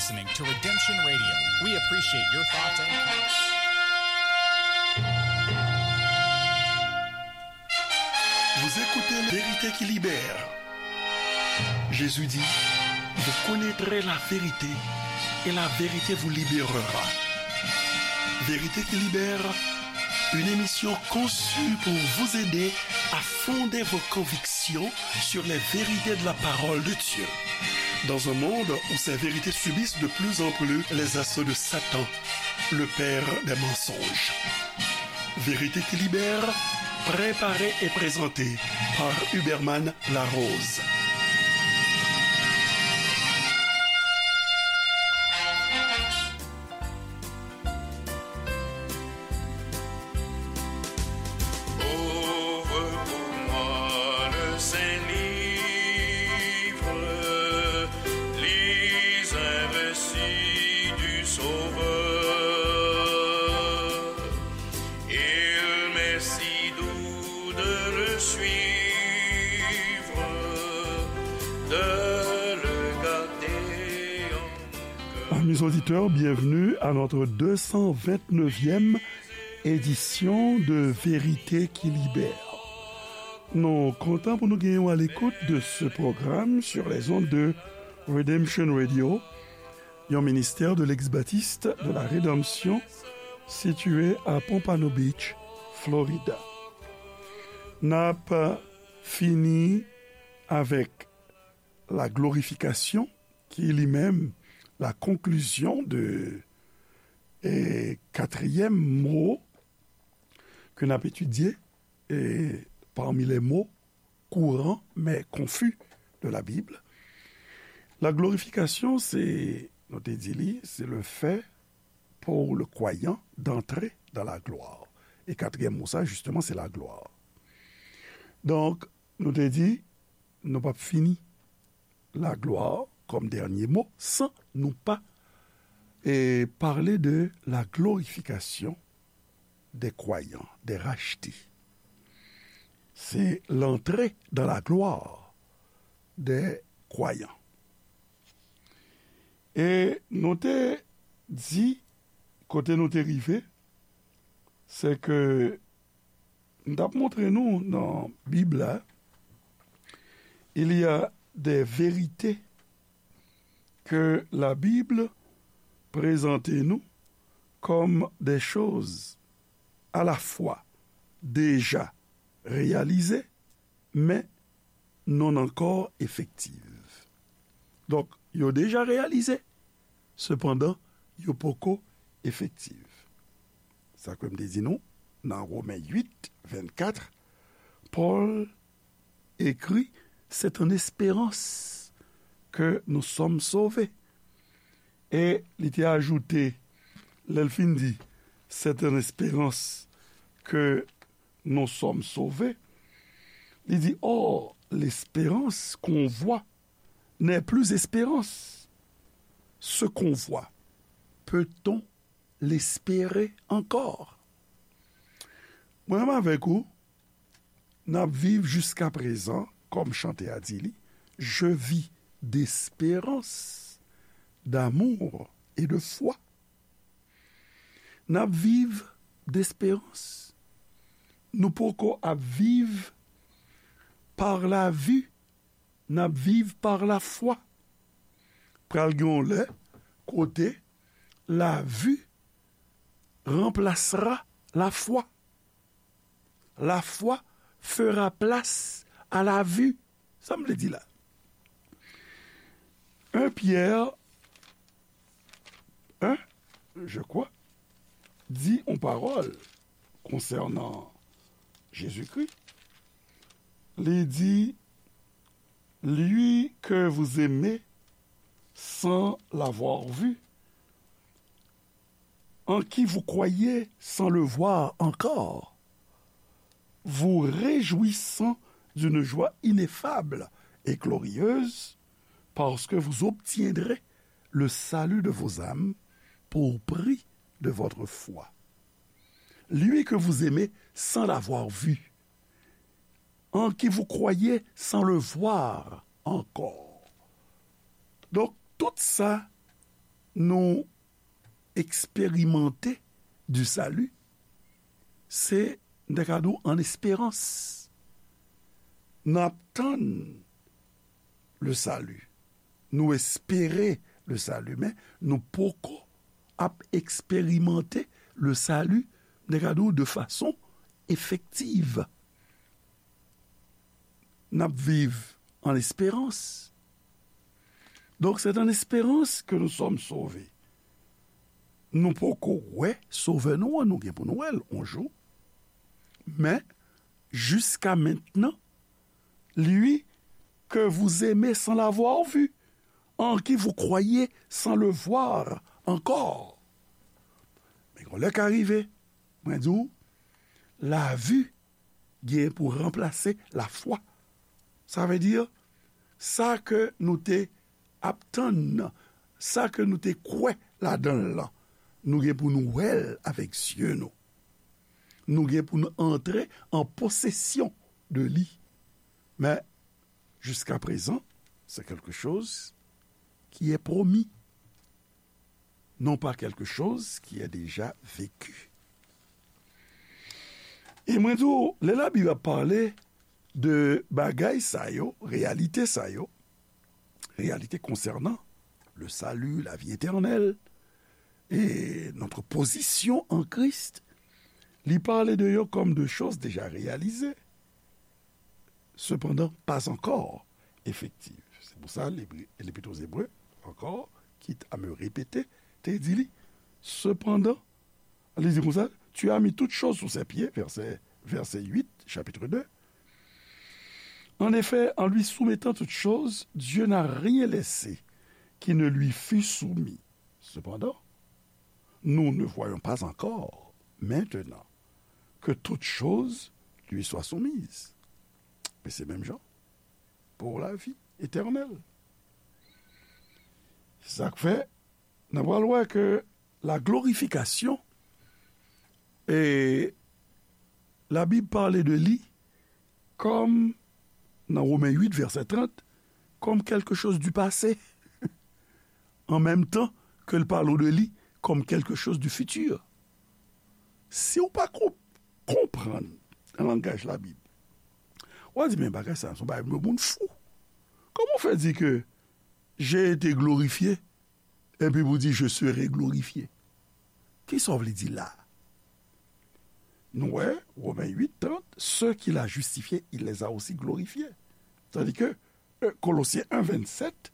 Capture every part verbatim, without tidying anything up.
Listening to Redemption Radio. We appreciate your thoughts and comments. Vous écoutez Vérité qui libère. Jésus dit, vous connaîtrez la vérité et la vérité vous libérera. Vérité qui libère, une émission conçue pour vous aider à fonder vos convictions sur les vérités de la parole de Dieu. Dans un monde où ces vérités subissent de plus en plus les assauts de Satan, le père des mensonges. Vérité qui libère, préparée et présentée par Huberman Larose. Ouvre pour moi le saint livre, lis un récit du Sauveur. Il m'est si doux de le suivre, de le garder en mon cœur. Amis auditeurs, bienvenue à notre deux cent vingt-neuvième édition de Vérité qui Libère. Nou kontan pou nou genyen w à l'écoute de ce programme sur les ondes de Redemption Radio, yon ministère de l'ex-baptiste de la Rédemption situé à Pompano Beach, Florida. N ap fini avec la glorification, qui est lui-même la conclusion de, eh, quatrième mot que n ap étudier, eh, parmi les mots courants mais confus de la Bible. La glorification, c'est, nou te di li, c'est le fait pour le croyant d'entrer dans la gloire. E katriyèm mo sa, justement, c'est la gloire. Donk, nou te di, nou p ap fini la gloire comme dernier mot sans nou pa, eh, parler de la glorification des croyants, des rachetés. C'est l'entrée dans la gloire des croyants. E nou te di, kote nou te rive, se ke m t ap montre nou nan Bib la, il y a des vérités que la Bible présente nous comme des choses à la fois déjà réalisées, mais non encore effectives. Donk, yo deja reyalize, sepandan, yo poko efektif. Sa ke m te di nou, nan Women uit, vennkat, Pòl écrit, c'est en espérance que nous sommes sauvés. E li te ajoute, lè l fin di, c'est en espérance que nous sommes sauvés, li di, or, l'espérance qu'on voit n'est plus espérance. Ce qu'on voit, peut-on l'espérer encore? Mwen menm avèk ou, n ap viv jiskaprezan, kòm chante a di li, je vis d'espérance, d'amour et de foi. N ap viv d'espérance. Nou poko ap viv par la vue, n ap viv par la foi. Pral gen yon lè kote la vue remplacera la foi. La foi fera place à la vue. Sa m vle di la? Un Pierre un, je crois, di yon pawòl konsènan Jezikri. Li di, lui que vous aimez sans l'avoir vu, en qui vous croyez sans le voir encore, vous réjouissant d'une joie ineffable et glorieuse, parce que vous obtiendrez le salut de vos âmes pour prix de votre foi. Lui que vous aimez sans l'avoir vu, en qui vous croyez sans le voir encore. Donk, tout sa nou eksperimante du salut, se, m ta ka di w, an esperans. N ap tann le salut. Nou espere le salut, men nou poko ap eksperimante le salut, m ta ka di w, de fason efektiv. N ap viv an esperans. Donc, c'est en espérance que nous sommes sauvés. Nou poko wè Sovè nou an, nou gen pou nou wè l yon jou. Men, jusqu'à maintenant, lui que vous aimez sans l'avoir vu, en qui vous croyez sans le voir encore. Men yon lè ka rive, mwen di w, la vue gen pou ranplase lafwa. Sa vle di, sa ke nou te ap tann nan, sa ke nou te kwè ladan l lan, nou gen pou nou wè l avèk zye nou. Nou gen pou nou antre an posesyon de li. Men, jusqu'à présent, c'est quelque chose qui est promis, non pas quelque chose qui est déjà vécu. E mwen di w, lè Labib ap pale de bagay sa yo, reyalite sa yo, réalité concernant le salut, la vie éternelle, et notre position en Christ, li pale de yo kòm de choses déjà réalisées, cependant pas encore effectives. Se pou sa, Lebre-, Lepit aux Hébreux, encore, quitte à me répéter, te di li, cependant, li di konsa, tu as mis toutes choses sous ses pieds, verset, verset huit, chapitre deux. En effet, en lui soumettant toutes choses, Dieu n'a rien laissé qui ne lui fût soumis. Cependant, nous ne voyons pas encore maintenant que toutes choses lui soient soumises. Men se menm jan pou lavi etènèl. Se sa k fè, n a pral wè ke la glorifikasyon, e Labib pale de li kòm, nan Women uit, vèsè trant, comme quelque chose du passé, en même temps que l pale de li comme quelque chose du futur. Si w pa ko-, konprann langaj Labib, w a di, "Men bagay sa, se yon bagay de moun fou. Kòman w fè di ke j'ai été glorifié, epi pou di, je serai glorifié?" Kisa w vle di la? Nou wè, Women uit trant, ceux qu'il a justifiés, il les a aussi glorifiés. Tandis que, euh, Colossiens un vingt-sept,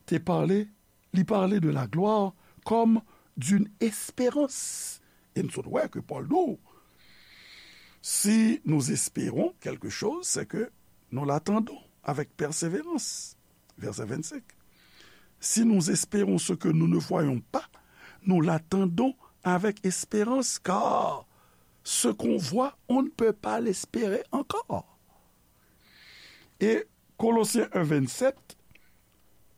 te pale, li pale de la gloire comme d'une espérance. E n sot wè ke Pòl di w, si nous espérons quelque chose, c'est que nous l'attendons avec persévérance. Verset vingt-cinq. Si nous espérons ce que nous ne voyons pas, nous l'attendons avec espérance, car ce qu'on voit, on ne peut pas l'espérer encore. Et Colossiens un vingt-sept,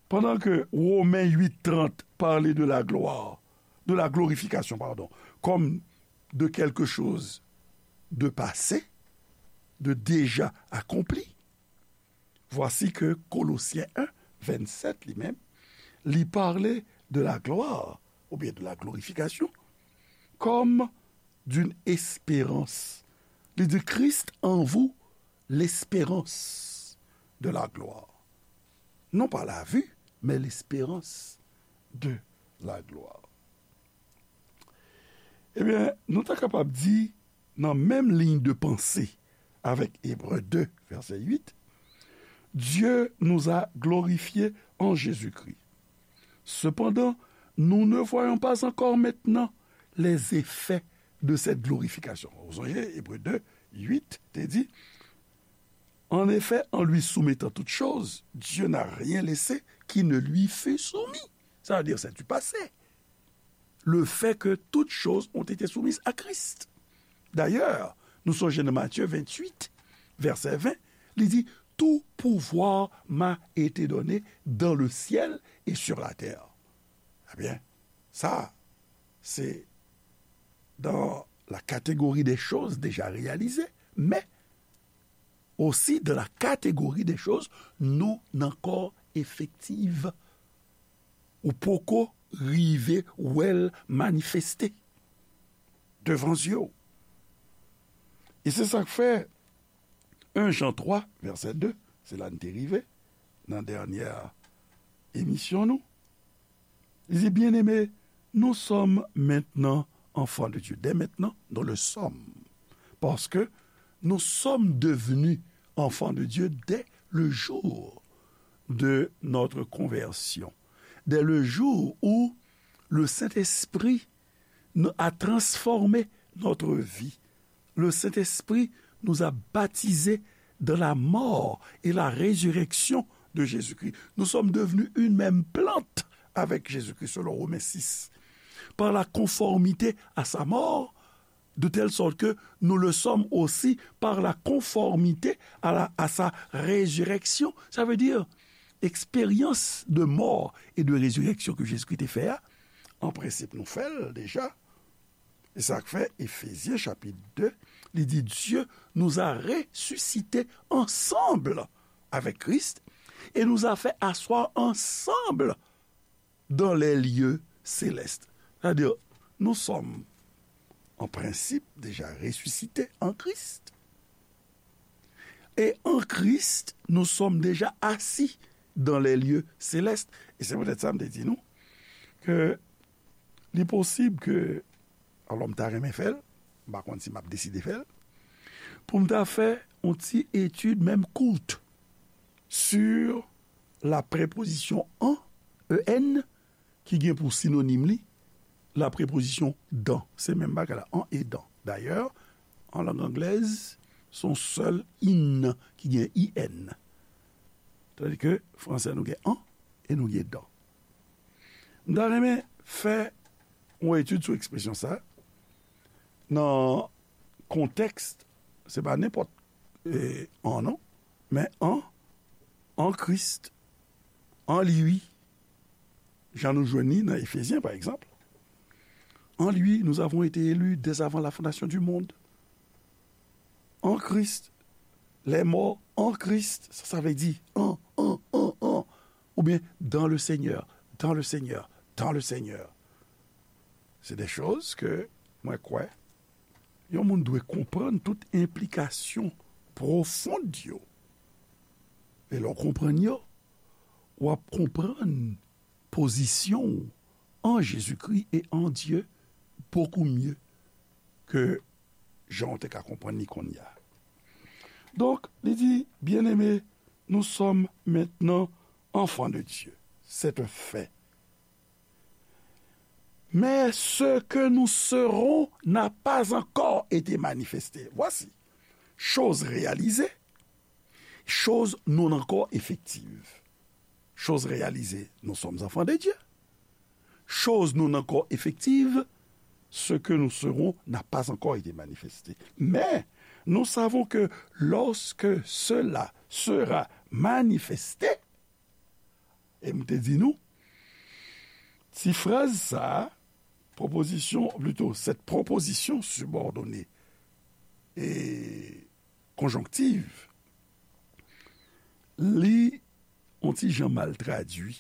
pendant que Romains huit trente parlait de la gloire, de la glorification, pardon, comme de quelque chose de passé, de déjà accompli, voici que Colossiens un vingt-sept, li menm, li pale de la gloire, oubyen de la glorification, comme d'une espérance. Li di, Christ en vous, l'espérance de la gloire. Non pas la vue, mais l'espérance de la gloire. Ebyen, nou ta kapab di, nan menm liy de panse avèk Ebre de, vèsè uit, Dieu nous a glorifiés en Jésus-Christ. Cependant, nous ne voyons pas encore maintenant les effets de cette glorification. Ou sonje, Ebre de, uit, te di, En effet, en lui soumettant toutes choses, Dieu n'a rien laissé qui ne lui fût soumis. Ça veut dire, c'est du passé. Le fait que toutes choses ont été soumises à Christ. D'ailleurs, nou sonje nan Matthieu vingt-huit, verset vingt, li di, Tout pouvoir m'a été donné dans le ciel et sur la terre. Ebyen, sa, se dans la catégorie des choses déjà réalisées, mais aussi dans la catégorie des choses non encore effectives. Ou poko rive wè l manifeste devan zye w. E se sa k fè en Jan twa, vèsè de, se la n te rive nan dènyè emisyon nou. Li di, Bien-aimés, nous sommes maintenant enfants de Dieu. Dès maintenant, nous le sommes. Parce que nous sommes devenus enfants de Dieu dès le jour de notre conversion, dès le jour où le Saint-Esprit a transformé notre vie. Le Saint-Esprit nous a baptisés dans la mort et la résurrection de Jésus-Christ. Nous sommes devenus une même plante avec Jésus-Christ, selon Romains six, par la conformité à sa mort, de telle sorte que nous le sommes aussi par la conformité à la, à sa résurrection. Ça veut dire, eksperyans de mò e de rezireksyon ke Jezikri te fè a, an prensip, nou fè l deja. E sa k fè Efezyen chapit de, li di, Dieu nous a ressuscités ensemble avec Christ et nous a fait asseoir ensemble dans les lieux célestes. Sa vle di, nou sòm, an prensip, deja resisite an Kris. E an Kris, nou sòm deja asi dans les lieux célestes. E se poutèt sa m te di nou ke li posib ke, alò, m ta renmen fè l, m pa konn si m ap deside fè l, pou m ta fè yon ti etid, menm kout, sur la preposition en, E N, ki gen pou sinonim li la prepozisyon dans. Se menm bagay la, en et dans. Dayè, an lang anglèz, se yon sèl in ki gen I N. Tandike fransè, nou gen en e nou gen dans. M ta renmen fè yon etid sou ekspresyon sa a nan kontèks, se pa nenpòt, e, en non, men en, en Christ, en lui, jan nou jwenn li nan Efezyen, pa egzanp. En lui, nous avons été élus dès avant la fondation du monde. En Christ, les morts en Christ, sa, sa vle di en, en, en, en, oubyen dans le Seigneur, dans le Seigneur, dans le Seigneur. Se de choz ke mwen kwè yon moun dwe konprann tout enplikasyon pwofon yo. E lè w konprann yo, w ap konprann pozisyon w an Jezikri e an Dye bokou mye ke jan w te ka konprann li kounye a. Donk, li di, Bien-aimés, nous sommes maintenant enfants de Dieu. C'est un fait. Mais ce que nous serons n'a pas encore été manifesté. Voici, chose réalisée, chose non encore effective. Chose réalisée, nous sommes enfants de Dieu. Chose non encore effective, ce que nous serons n'a pas encore été manifesté. Mais nous savons que lorsque cela sera manifesté, e m te di nou, ti fraz sa a, proposition, plutôt, cette proposition subordonnée et conjonctive, li yon ti jan mal tradui,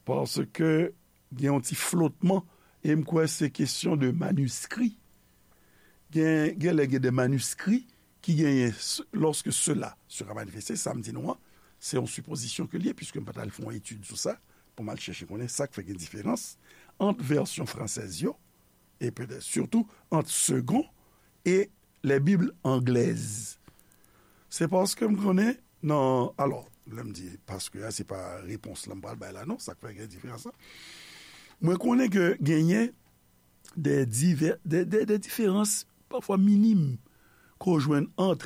paske gen yon ti flotman, e m kwè se kesyon de maniskri. Gen, gen lè gen de maniskri ki genyen, lorsque cela sera manifesté, sa m di nou an, se yon sipozisyon ke l ye, puisque m pa t al fè yon etid sou sa, pou m al chèche konnen sa k fè gen diferans ant vèsyon fransèz yo, e petèt sitou ant Segond e les Bibles anglaises. Se paske m konnen nan, alò, lè m di paske a, se pa repons la m pral bay la, non, sa k fè gen diferans la. Mwen konnen ke genyen de divè, de, de, de diferans, pafwa minim, ke w jwenn ant,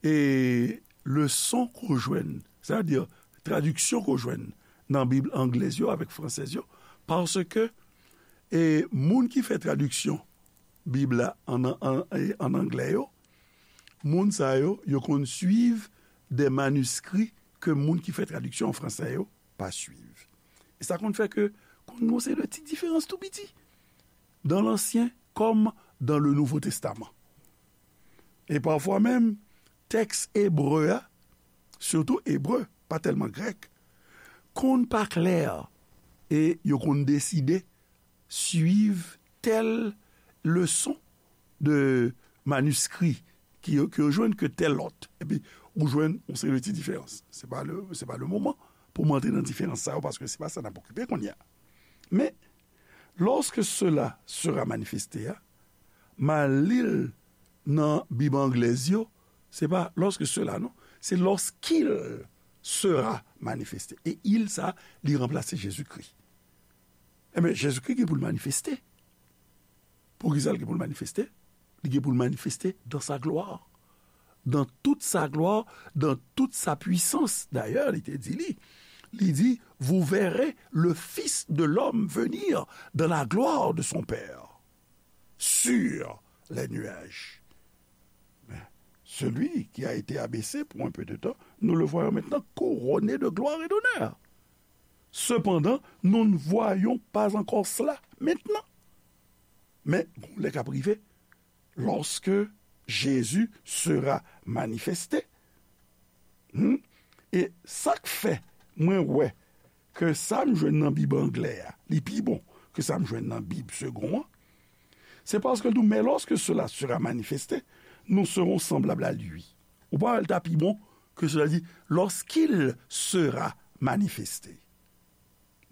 e, leson ke w jwenn, sètadi tradiksyon ke w jwenn nan Bib anglèz yo avèk fransèz yo, paske, e, moun ki fè tradiksyon Bib la an, an, an, an anglè yo, moun sa yo, yo konn swiv de maniskri ke moun ki fè tradiksyon an fransè yo pa swiv. E sa konn fè ke konn gen yon seri de ti diferans tou piti dans l'Ancien comme dans le Nouveau Testament. E pafwa menm, tèks ebre a, sitou ebre, pa tèlman grèk, konn pa klè. e yo konn deside swiv tèl leson de maniskri ki yo, ki yo jwenn ke tèl lòt. Epi, ou jwenn yon seri de ti diferans. Se pa le, se pa le moman pou m antre nan diferans sa yo, paske se pa sa n ap okipe kounye a. Men, lorsque cela sera manifesté a, m al li l nan Bib anglèz yo, se pa lorsque cela, non, se lorsqu'il sera manifesté. E il sa, li ranplase Jezikri. Ebyen, Jezikri gen pou l manifeste. Poukisa l gen pou l manifeste? Li gen pou l manifeste dans sa gloire. Dans toute sa gloire, dans toute sa puissance. Dayè, li te di li, li di, vous verrez le Fils de l'homme venir dans la gloire de son Père sur les nuages. Mais celui qui a été abaissé pour un peu de temps, nous le voyons maintenant couronné de gloire et d'honneur. Cependant, nous ne voyons pas encore cela maintenant. Men, gon lè k ap rive, lorsque Jésus sera manifesté. Hmm? E sa k fè mwen wè ke sa m jwenn nan Bib anglè a, li pi bon ke sa m jwenn nan Bib segon an, se paske l di w, mais lorsque cela sera manifesté, nous serons semblables à lui. Ou pa wè l ta pi bon ke cela dit, lorsqu'il sera manifesté.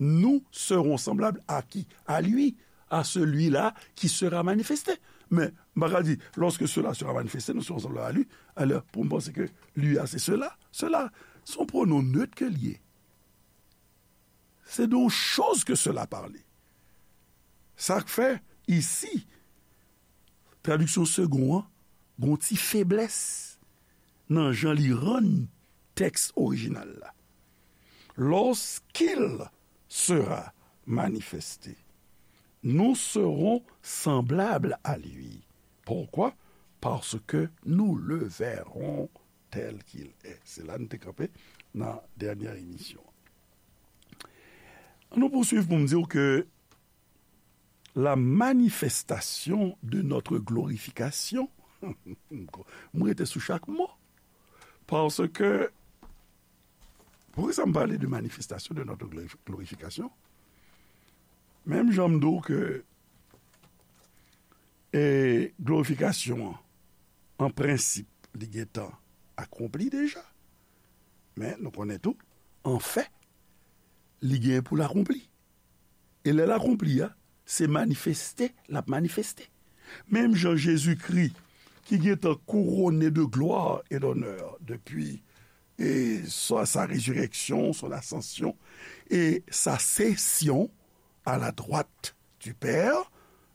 Nous serons semblables à qui? À lui, à celui-là qui sera manifesté. Men, m pa ka di, lorsque cela sera manifesté, nous serons semblables à lui. Alò, pou m panse ke lui a, se cela. Cela, se yon pwonon nèt ke l ye. Se de yon choz ke cela pale. Sa k fè, isi, tradiksyon segon an, gon ti feblès nan jan li rann tèks orijinal la. Lorsqu'il sera manifesté, nous serons semblables à lui. Pourquoi? Parce que nous le verrons tel qu'il est. Se la nou te kanpe nan dènyè emisyon. An nou pouswiv pou m di w ke la manifestation de notre glorification, m rete sou chak mo, paske, poukisa m pale de manifestation de notre glorif-, glorification? Menm jan m di w ke, e, glorifikasyon an, an prensip, li gentan akonpli deja. Men nou konnen tou, an fè, li gen pou l akonpli. E lè l akonpli a, se manifeste l ap manifeste. Menm jan Jezikri, ki gentan kouwone de glwa e donè depi, e, sa, sa rezirèksyon, son asansyon, e sa sesyon a la dwat du Pè,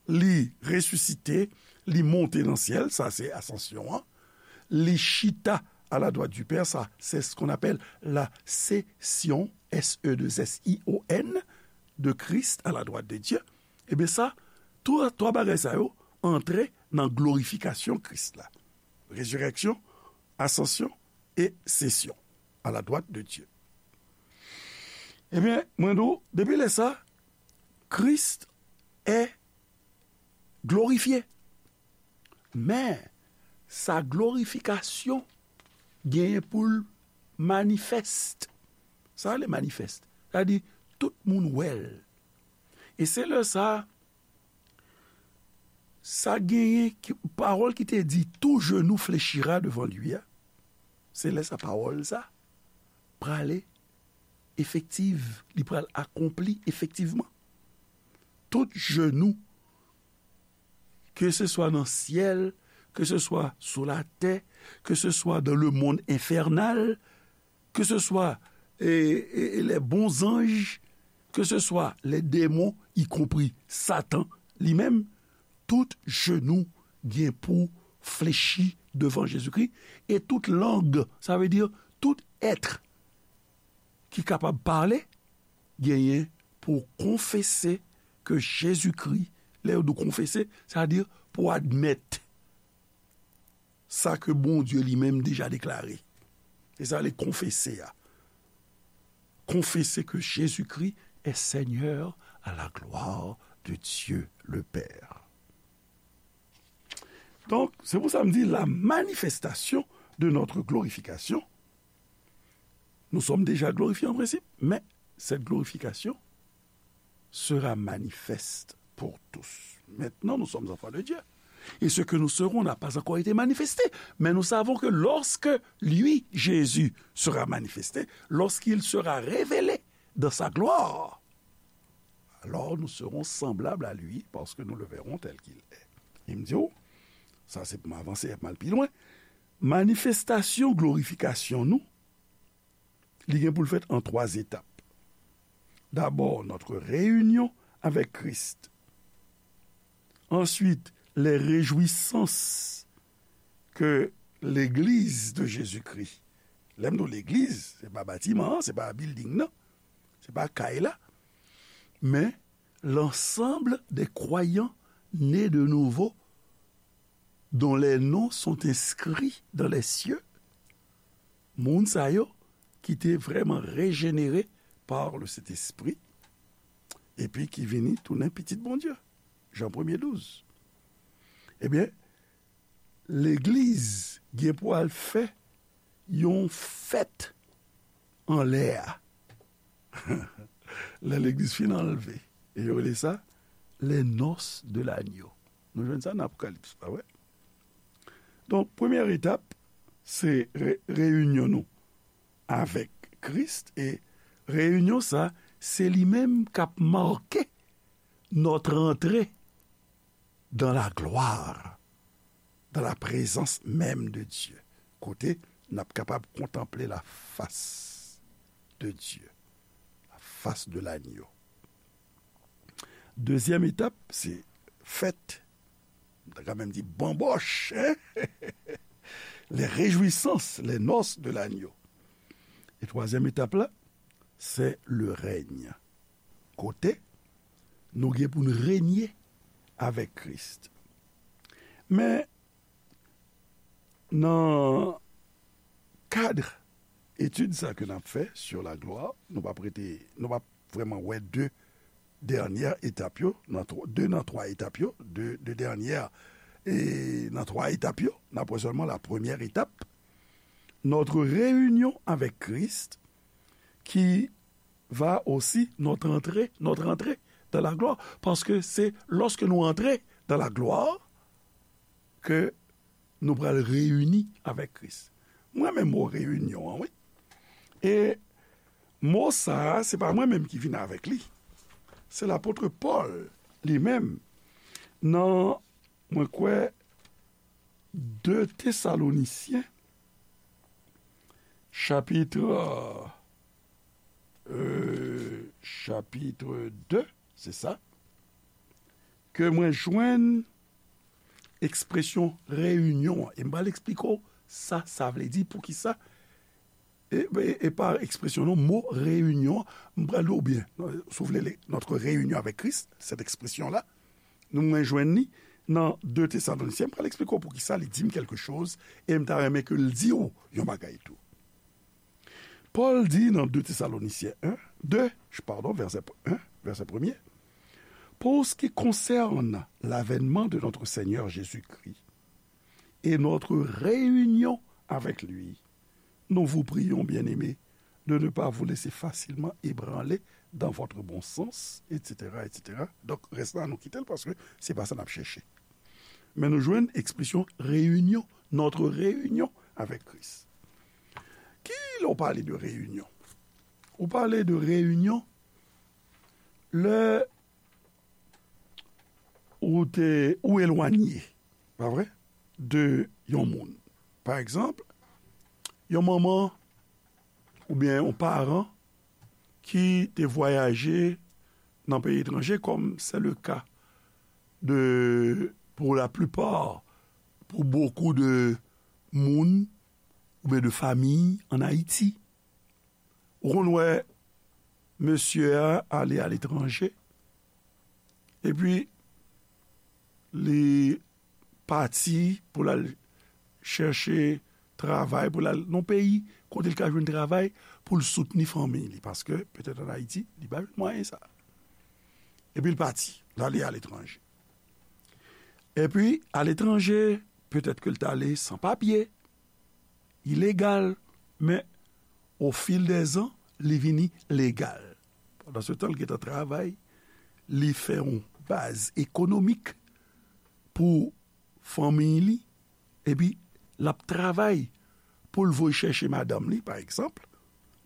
li resisite, li monte nan syèl, sa se asansyon an, li chita a la dwat du Pè, sa se ce qu'on appelle la session, S E deux S I O N, de Christ à la droite de Dieu. Ebyen sa, twa, twa bagay sa yo antre nan glorifikasyon Kris la. Rezirèksyon, asansyon e sesyon à la droite de Dieu. Ebyen, mwen di w, depi lè sa, Christ est glorifié. Men, sa glorifikasyon genyen pou l manifest. Sa rele manifest. Sa di, tout moun wè l. E se lè sa, sa genyen ki, pawòl ki te di, tout genou fléchira devant lui a, se lè sa pawòl sa prale efektiv, li pral akonpli efektivman. Tout genou, ke se swa nan syèl, ke se swa sou latè, ke se swa dans le monde infernal, ke se swa, e, e, e, les bons anges, ke se swa les démons, y compris Satan li menm, tout genou gen pou flechi devan Jezikri, e tout lang, sa vle di tout èt ki kapab pale, genyen pou konfese ke Jezikri, lè yo di w konfese, sa vle di pou admèt sa ke Bondye li menm deja deklare. Se sa le konfese a. Confesser que Jésus-Christ est Seigneur à la gloire de Dieu le Père. Donc, c'est pour ça que je dis la manifestation de notre glorification. Nous sommes déjà glorifiés en principe, mais cette glorification, sera manifeste pour tous. Maintenant, nous sommes enfants de Dieu. Et ce que nous serons n'a pas encore été manifesté. Mais nous savons que lorsque lui, Jésus, sera manifesté, lorsqu'il sera révélé dans sa gloire, alors nous serons semblables à lui parce que nous le verrons tel qu'il est. Li di w, sa se pou m avanse, m al pi lwen. Manifestasyon glorifikasyon nou, li gen pou l fèt an twa etap. D'abord, notre réunion avec Christ. Ensuite, les réjouissances que l'Église de Jésus-Christ. Lè m di w legliz, se pa batiman an, se pa building nan, se pa kay la, men l'ensemble des croyants nés de nouveau dont les noms sont inscrits dans les cieux. Moun sa yo ki te vrèman rejenere par le Saint-Esprit, epi ki vini tounen pitit Bondye. Jan premye douz. Ebyen, legliz gen pou al fè yon fèt anlè a. Lè legliz fin anlve, e yo rele sa les noces de l'agneau. Nou jwenn sa nan Apokalips, pa vre? Donk, premyè etap, se re-, reyinyon nou avèk Kris, e reyinyon sa, se li menm k ap make notre entrée dans la gloire, dans la présence même de Dieu, kote n ap kapab kontanple la face de Dieu, la face de l'agneau. Dezyèm etap, se fèt, m ta ka menm di banbòch, hein? Les réjouissances, les noces de l'agneau. E twazyèm etap la, se le règne. Kote nou gen pou n renye avèk Kris. Men, nan kad etid sa ke n ap fè sur la gloire, nou p ap rete, nou p ap vrèman wè de dènyè etap yo, nan twa, de nan twa etap yo, de, de dènyè, e nan twa etap yo, n ap wè sèlman la première étape, notre réunion avec Christ, qui va aussi notre entrée, notre entrée dans la gloire. Paske se lòske nou antre dans la gloire ke nou pral reyini avèk Kris. Mwen renmen mo reyinyon an, wi. E mo sa a, se pa mwen menm ki vin avèk li. Se lapot Pòl li menm. Nan, mwen kwè, de Tesalonisyen, chapit, euh, chapit de, se sa, ke mwen jwenn ekspresyon reyinyon an. E m pral eksplike w sa sa vle di, poukisa. E, e, e pa ekspresyon non, mo reyinyon an, m pral di w byen, si w vle, le, notre réunion avec Christ, cette expression-là, nou mwen jwenn li nan de Tesalonisyen, m pral eksplike w poukisa li di m kèlke choz, e m ta renmen ke l di w yon bagay tou. Pòl di nan de Tesalonisyen en, de, padon, vèsè en, vèsè premye, pour ce qui concerne l'avènement de notre Seigneur Jésus-Christ et notre réunion avec lui, nous vous prions, bien-aimés, de ne pas vous laisser facilement ébranler dans votre bon sens, et cetera, et cetera. Donk, rès la, nou kite l paske se pa sa n ap chèche. Men nou jwenn ekspresyon reyinyon, notre réunion avec Christ. Ki lè w pale de reyinyon? Ou pale de reyinyon lè ou te, ou elwanye, pa vre, de yon moun. Pa egzanp, yon manman oubyen yon paran ki te vwayaje nan peyi etranje, comme c'est le cas de, pour la plupart, pour beaucoup de moun oubyen de famiy an Ayiti. Ou konn wè mesye a ale aletranje, epi li pati pou l al chèche travay, pou l al nan peyi kote l ka jwenn travay pou l soutni fanmi li, paske petèt an Ayiti, li pa jwenn mwayen sa. Epi l pati, l ale aletranje. Epi, aletranje, petèt ke l t ale san papye, ilegal, men au fil des ans, li vini legal. Pandan se tan, l gentan travay, li fè yon baz ekonomik pou fanmiy li, epi l ap travay pou l voye chèche madanm li, pa egzanp,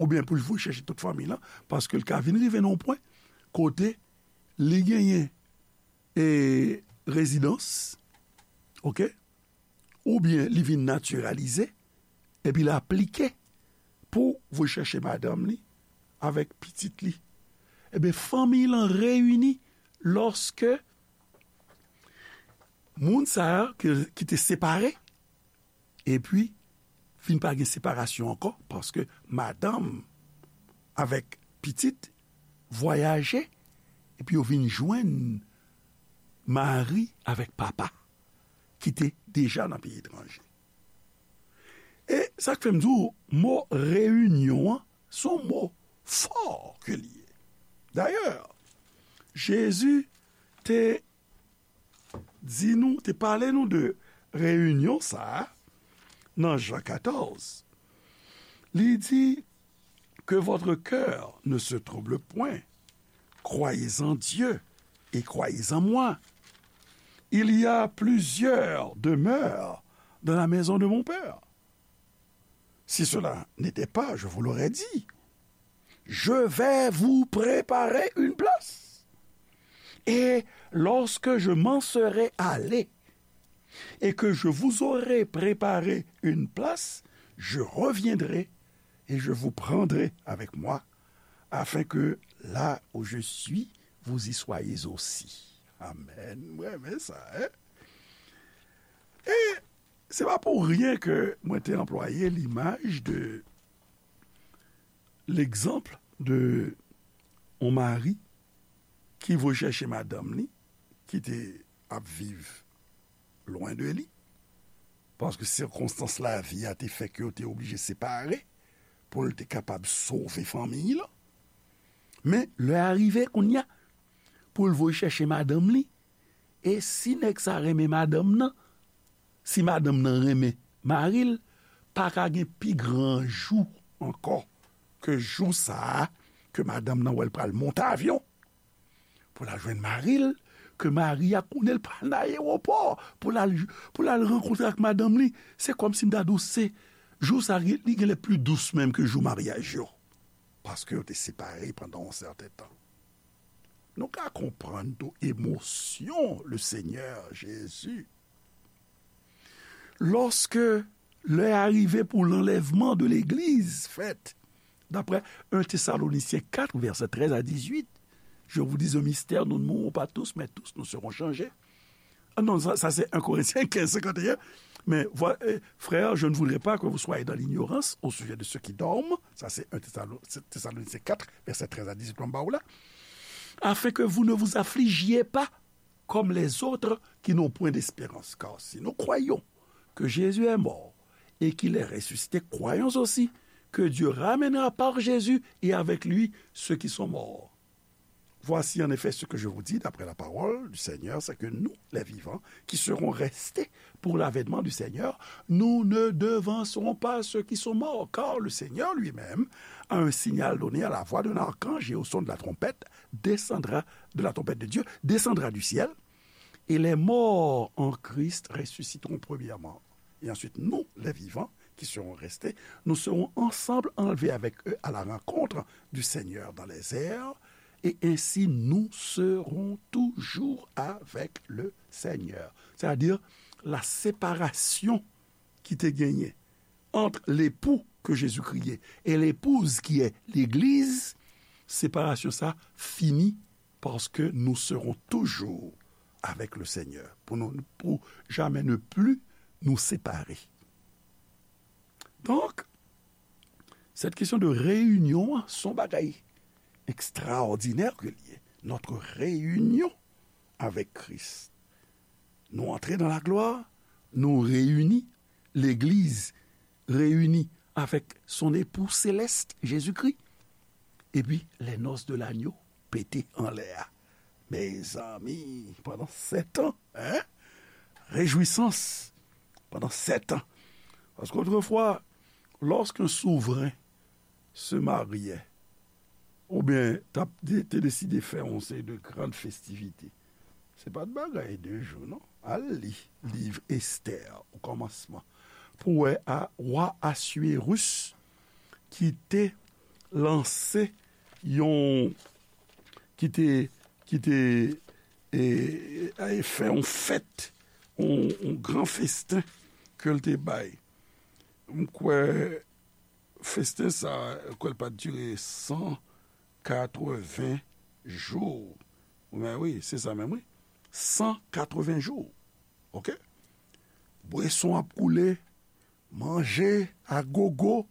oubyen pou l voye chèche tout fanmiy lan, paske l ka vin rive nan yon pwen kote li genyen, e, rezidans, oke? Oubyen li vin natiralize, epi l aplike pou voye chèche madanm li avèk pitit li. Ebyen, fanmiy lan reyini lòske moun sa a ki, ki te separe, epi fin pa gen separasyon ankò, paske madanm avèk pitit vwayaje, epi yo vin jwenn mari avèk papa ki te deja nan peyi etranje. E sa k fè m di w, mo reyinyon an, se yon mo fò ke li ye. Dayè, Jezi te di nou, te pale nou de reyinyon sa a nan Jan katòz. Li di, que votre cœur ne se trouble point. Croyez en Dieu et croyez en moi. Il y a plusieurs demeures dans la maison de mon Père. Si cela n'était pas, je vous l'aurais dit. Je vais vous préparer une place. Et lorsque je m'en serai allé, et que je vous aurai préparé une place, je reviendrai et je vous prendrai avec moi, afin que là où je suis, vous y soyez aussi. Amen. Mwen renmen sa, en? E se pa pou ryen ke mwen te anplwaye limaj de, legzanp de yon mari ki voye chèche madanm li, ki te ap viv lwen de li, paske sikonstans lavi a te fè ke yo te oblije separe pou l te kapab sove fanmiy lan. Men lè a rive kounye a pou l voye chèche madanm li, e si nèg sa renmen madanm nan, si madanm nan renmen mari l, pa ka gen pi gran jou ankò ke jou sa a ke madanm nan wè l pral monte avyon pou l al jwenn mari l, ke mari a konnen l pral nan ayewopò pou l al, pou l al rankontre ak madanm li. Se kòmsi m ta di w se jou sa a li genlè pli dous menm ke jou maryaj yo, paske yo te separe pandan yon sèten tan. Nou ka konprann tou emosyon Lesenyè Jezi lòske lè a rive pou lanlèvman de legliz fèt. D'après un Thessaloniciens quatre, versets treize à dix-huit, je vous dis un mystère, nous ne mourrons pas tous, mais tous nous serons changés. Ah non, sa, sa se un Corinthiens quinze, cinquante et un. Mais voi- euh, frères, je ne voudrais pas que vous soyez dans l'ignorance au sujet de ceux qui dorment. Ça, c'est un Thessalon- Thessaloniciens quatre, verset treize à dix-huit, mwen ba w la. Afin que vous ne vous affligiez pas comme les autres qui n'ont point d'espérance. Car si nous croyons que Jésus est mort et qu'il est ressuscité, croyons aussi que Dieu ramènera par Jésus et avec lui ceux qui sont morts. Voici en effet ce que je vous dis d'après la parole du Seigneur, c'est que nous, les vivants, qui serons restés pour l'avènement du Seigneur, nous ne devancerons pas ceux qui sont morts, car le Seigneur lui-même, à un signal donné, à la voix d'un archange et au son de la trompette, descendra de la trompette de Dieu, descendra du ciel, et les morts en Christ ressusciteront premièrement. Et ensuite, nous, les vivants, qui seront restés, nous serons ensemble enlevés avec eux à la rencontre du Seigneur dans les airs, et ainsi nous serons toujours avec le Seigneur. C'est-à-dire, la séparation ki te genyen entre l'époux que Jésus-Christ est et l'épouse qui est l'Église, séparation ça fini parce que nous serons toujours avec le Seigneur, pour, nous, pour jamais ne plus nous séparer. Donc, cette question de réunion, se yon bagay extraordinaire ke li ye. Notre réunion avec Christ. Nou antre dans la gloire, nou reyini, legliz reyini avec son époux céleste, Jésus-Christ. Epi, les noces de l'agneau pete anlè a. Mezanmi, pandan sèt an, hein? Réjouissance pandan sèt an. Parce qu'autrefois, lorsqu'un souverain se mariait, oubyen t ap de-, te deside fè yon seri de gran festivite. Se pa t bagay de jou, non. Al li liv Estè, o kòmansman, pou wè a, wa Aswirus ki te lanse yon, ki te, ki te, e, e, fè yon fèt, yon, yon gran festen ke l te bay. M kwè festen sa, m kwè l pa t dire san katreven jou. Men wi, se sa menm, wi. San katreven jou. Oke? Bweson ap koule, manje a gogo.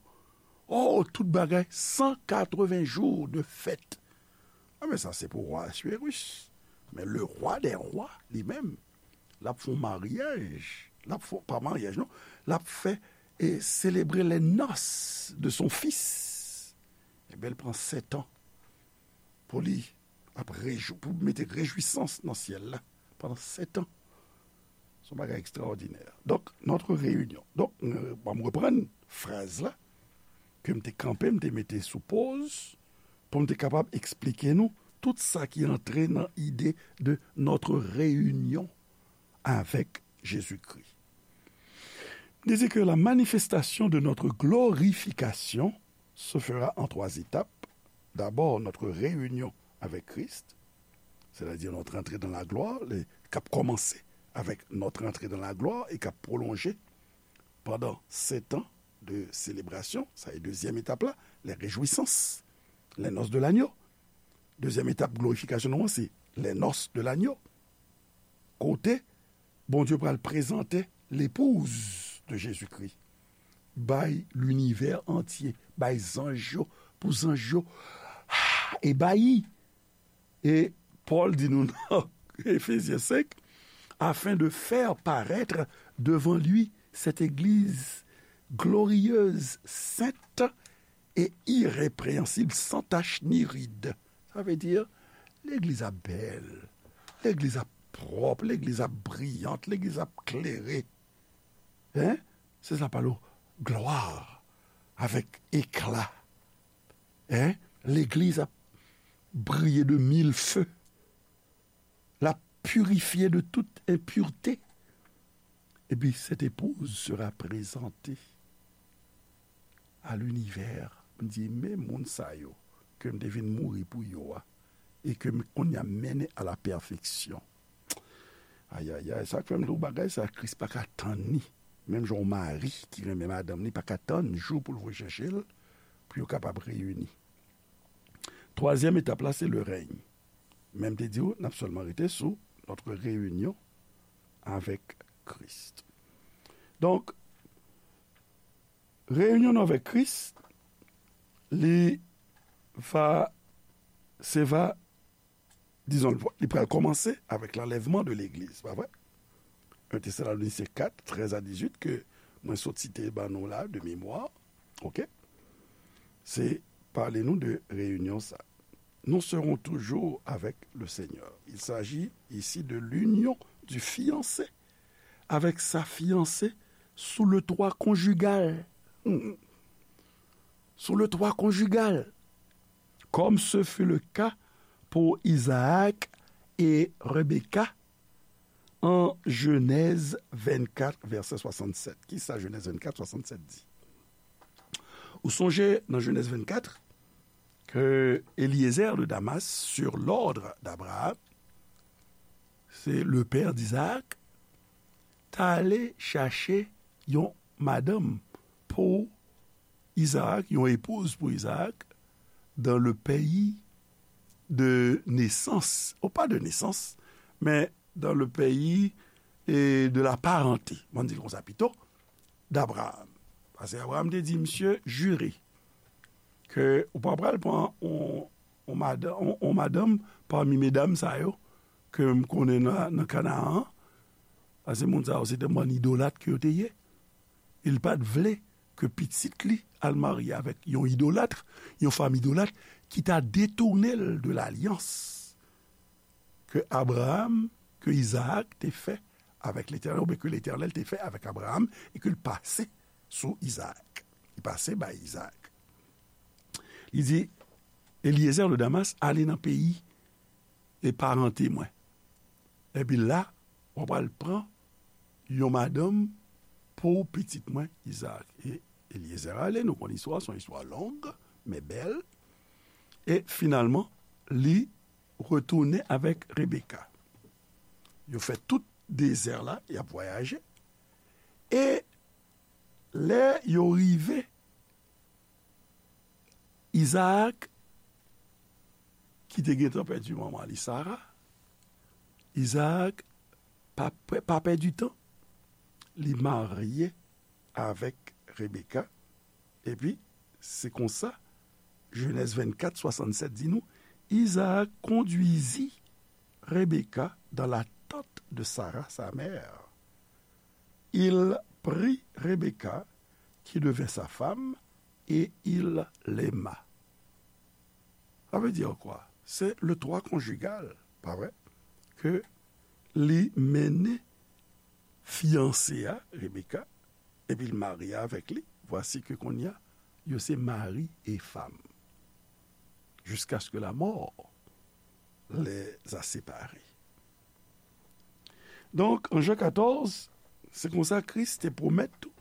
Oh, tout bagay, san katreven jou de fèt. A, men sa, se pou wa Aswirus. Men le rwa dè rwa, li menm, l ap fè yon maryaj. L ap fè, pa maryaj, non. L ap fè, e selebre les noces de son fils. Ebyen, l pran sèt an pou li ap rejou-, pou mete rejwisans nan syèl la pandan sèt an. Se yon bagay ekstraòdinè. Donk, notre réunion. Donk, euh, bon, m reprann fraz la ke m te kanpe, m te mete sou poz, pou m te kapab eksplike nou tout sa ki antre nan ide de notre réunion avec Jésus-Christ. Il dit que la manifestation de notre glorification se fera en trois étapes. D'abord, notre réunion avec Christ, c'est-à-dire notre entrée dans la gloire, le, k ap kòmanse avec notre entrée dans la gloire et k ap pwolonje pandan sèt an de selebrasyon. Sa e dezyèm etap la, les réjouissances, les noces de l'agneau. Dezyèm etap glorifikasyon nou an, se les noces de l'agneau. Kote Bondye pral prezante l'épouse de Jésus-Christ bay linivè antye, bay zanj yo, pou zanj yo, ah, ebayi. E Pòl di nou nan Efezyen senk, afin de faire paraître devant lui cette église glorieuse, sainte et irrépréhensible, sans tache ni ride. Sa vle di, legliz ap bèl, legliz ap pwòp, legliz ap briyant, legliz ap klere. Hein? Se sa pale w, glwa, avèk ekla. Hein? Legliz ap briye de mil fe. L ap pirifye de tout enpirte. Et puis, cette épouse sera présentée à l'univers. M di, men moun sa yo, ke m te vin mouri pou yo a, e ke m kounye a mennen à la perfection. Ayayay, sa k fè m di w bagay sa, Kris pa ka tann li. Menm jan yon mari ki renmen madanm li pa ka tann jou pou l voye chèche l, pou yo kapab reyini. Twazyèm etap la, se le règne. Men m te di w, n ap sèlman rete sou notre réunion avec Christ. Donk, reyinyon nou avèk Kris, li va, se va, dizon, li pral kòmanse avèk l'enlèvement de l'église, pa vre? Un Thessaloniciens quatre, treize à dix-huit, ke mwen sot site ban nou la, de mémoire, oke? Se pale nou de reyinyon sa. Nous serons toujours avec le Seigneur. Il s'agit ici de l'union du fiancé avec sa fiancée sous le toit conjugal. Hmm. Sous le toit conjugal. Comme ce fut le cas pour Isaac et Rebecca en Genèse vingt-quatre, verset soixante-sept. Kisa Genèse vingt-quatre, soixante-sept di? Ou sonje nan Genèse vingt-quatre, que Eliezer de Damas, sur l'ordre d'Abraham, c'est le père d'Isaac, t ale chache yon madanm pou Isaac, yon épouse pour Isaac, dans le pays de naissance, ou pa de nesans, men dans le pays, e, de la parenté, m di l konsa pito, d'Abraham. Paske Abraham te di, misye jire ke ou pa pral pran on, on madan-, on, on madanm pami medam sa yo ke m konnen nan, nan Kanaan an, paske moun sa yo se te bann idolat ke yo te ye. E l pa t vle ke pitit li al marye avèk yon idolat, yon fanm idolat ki ta detounen l de lalyans ke Abraham, ke Izaak te fè avèk Letènèl, oubyen ke Letènèl te fè avèk Abraham, e ke l pase sou Izaak. Li pase bay Izaak. Li di, Eliezer de Damas, ale nan peyi e parante mwen. Epi la, w pral pran yon madanm pou pitit mwen, Izaak. E Eliezer ale, nou konn istwa, se yon istwa long, men bèl. E finalman, li retounen avèk Rebeka. Yo fè tout dezè la, y ap vwayaje. E lè yo rive, Izaak, ki te gentan pèdi manman li, Sara, Izaak pa, pa pèdi tan, li marye avèk Rebeka. Epi, se konsa, Jenèz vennkat, swasannsèt di nou, Izaak conduisit Rebecca dans la tente de Sarah, sa mère. Il prit Rebecca, qui devint sa femme, et il l'aima. Sa vle di kwa? Se le twa konjigal, pa vre? Ke li mennen fiyanse a, Rebecca, epi l marye avèk li. Vwasi ke kounye a, yo se mari e fanm. Jiskaske lamò les a separés. Donk, an Jan katòz, se konsa Kris te pwomèt tou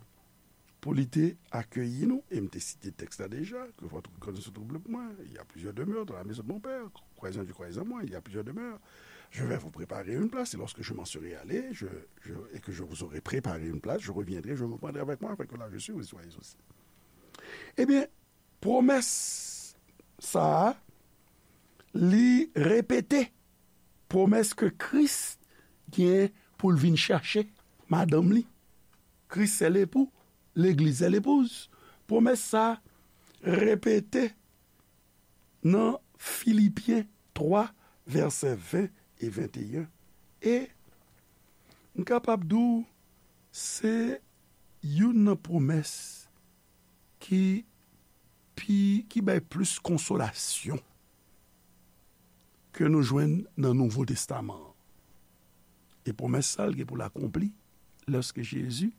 pou li te akeyi nou, e m te site tèks la deja, que votre cœur ne se trouble point, il y a plusieurs demeures dans la maison de mon père, croyez en Dieu, croyez en moi, il y a plusieurs demeures. Je vais vous préparer une place, et lorsque je m'en serai allé, je, je, et que je vous aurai préparé une place, je reviendrai, je vous prendrai avec moi, afin que là où je suis, vous y soyez aussi. Ebyen, pwomès sa a, li repete pwomès ke Kris gen pou l vin chache madanm li. Christ est l'époux, l'église est l'épouse. Pwomès sa a repete nan Filipyen twa, vèsè ven e venteyen. E m kapab di w, se youn nan pwomès ki pi, ki bay plis konsolasyon ke nou jwenn nan Nouvo Testaman an. E pwomès sa a, l gen pou l akonpli lòske Jezi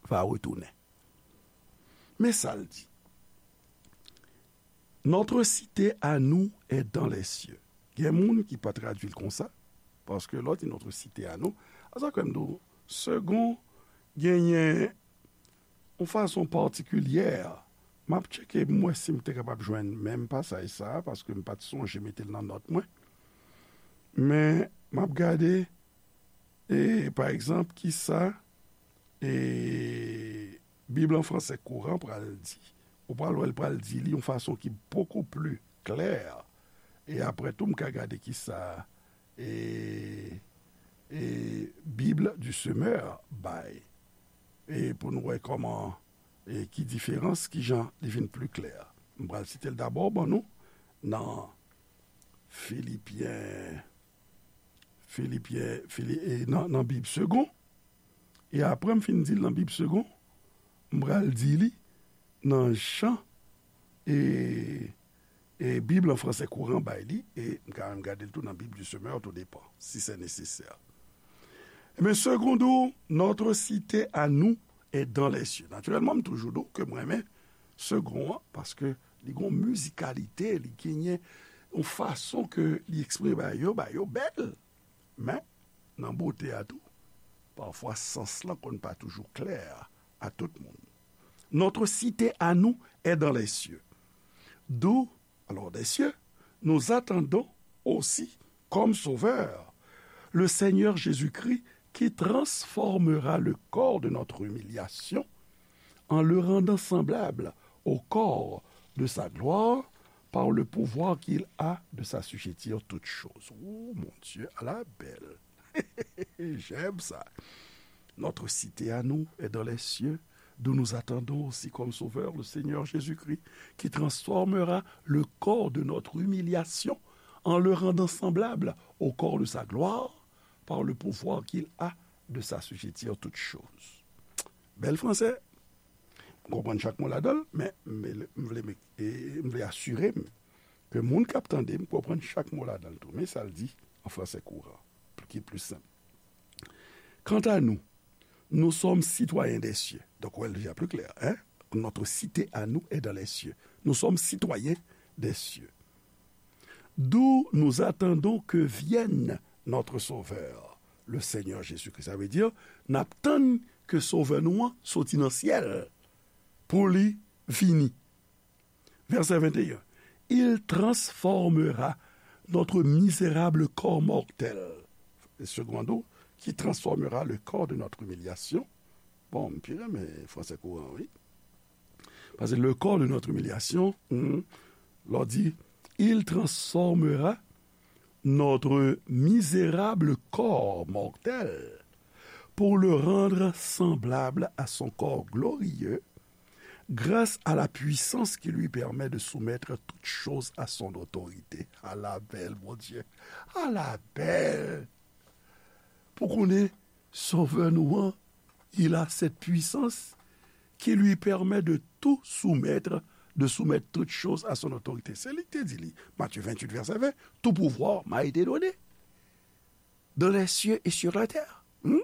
va retounen. Men sa l di, Notre cité à nous est dans les cieux. Gen moun ki pa tradui l konsa, paske lè w di notre cité à nous, a sa kwè m di w, Segond genyen yon fason patikilyè. M ap tcheke m wè si m te kapab jwenn menm pasaj sa a, paske m pa t sonje mete l nan nòt mwen. Men, m ap gade, e, pa egzanp, kisa, e, Bib an fransè kouran pral di. Ou pral wè l pral di li yon fason ki beaucoup plus claire. E apre tou, m ka gade kisa, e, e, Bible du Semeur bay. E pou nou wè kòman, e ki diferans, ki jan li vin pli klè. M pral site l dabò ban nou nan Filipyen, Filipyen, Fili-, e nan, nan Bib Segond. E apre m fin di l nan Bib Segond, m pral di li nan jan, e, e Bib an fransè kouran bay li, e m ka menm gade l tou nan Bib du Semeur, tout depan, si se nesesè. Ebyen, Segond di w, notre cité à nous est dans les cieux. Natirèlman, m toujou di w ke m renmen Segond an, paske li gon mizikalite, li genyen yon fason ke li eksprime bagay yo, bagay yo bèl. Men, nan bote a tou, pafwa sans lan konn pa toujou klè a tout moun. Notre cité à nous est dans les cieux. D'où, alors des cieux, nous attendons aussi comme sauveur le Seigneur Jésus-Christ qui transformera le corps de notre humiliation en le rendant semblable au corps de sa gloire par le pouvoir qu'il a de s'assujettir toutes choses. Oh mon Dieu, à la belle. J'aime ça. Notre cité à nous est dans les cieux, d'où nous attendons aussi comme sauveur le Seigneur Jésus-Christ, qui transformera le corps de notre humiliation en le rendant semblable au corps de sa gloire, par le pouvoir qu'il a de s'assujettir toutes choses. Bèl fransè. M konprann chak mo ladan l, men m vle, m vle, m vle asire m ke moun k ap tande m konprann chak mo ladan l tou. Men sa l di an fransè kouran, ki pli senp. Quant à nous, nous sommes citoyens des cieux. Donc, wè l deja pli klè, hein? Notre cité à nous est dans les cieux. Nous sommes citoyens des cieux. d'où nous attendons que vienne notre Sauveur, le Seigneur Jésus-Christ. Sa vle di, n ap tann ke Sovè nou an soti nan syèl pou li vini. Verset vingt et un. Il transformera notre misérable corps mortel. Secondo, qui transformera le corps de notre humiliation. Bon, m pi renmen fransè kouran, wi. Paske le corps de notre humiliation, hmm, lè w di, il transformera notre misérable corps mortel pour le rendre semblable à son corps glorieux, grâce à la puissance qui lui permet de soumettre toutes choses à son autorité. Ala bèl, Bondye! Ala bèl! Pou konnen Sovè nou an, il a cette puissance qui lui permet de tout soumettre, de soumettre toutes choses à son autorité. Se li ki te di li, Matthieu vingt-huit, verset vingt, tout pouvoir m'a été donné dans les cieux et sur la terre. Hmm?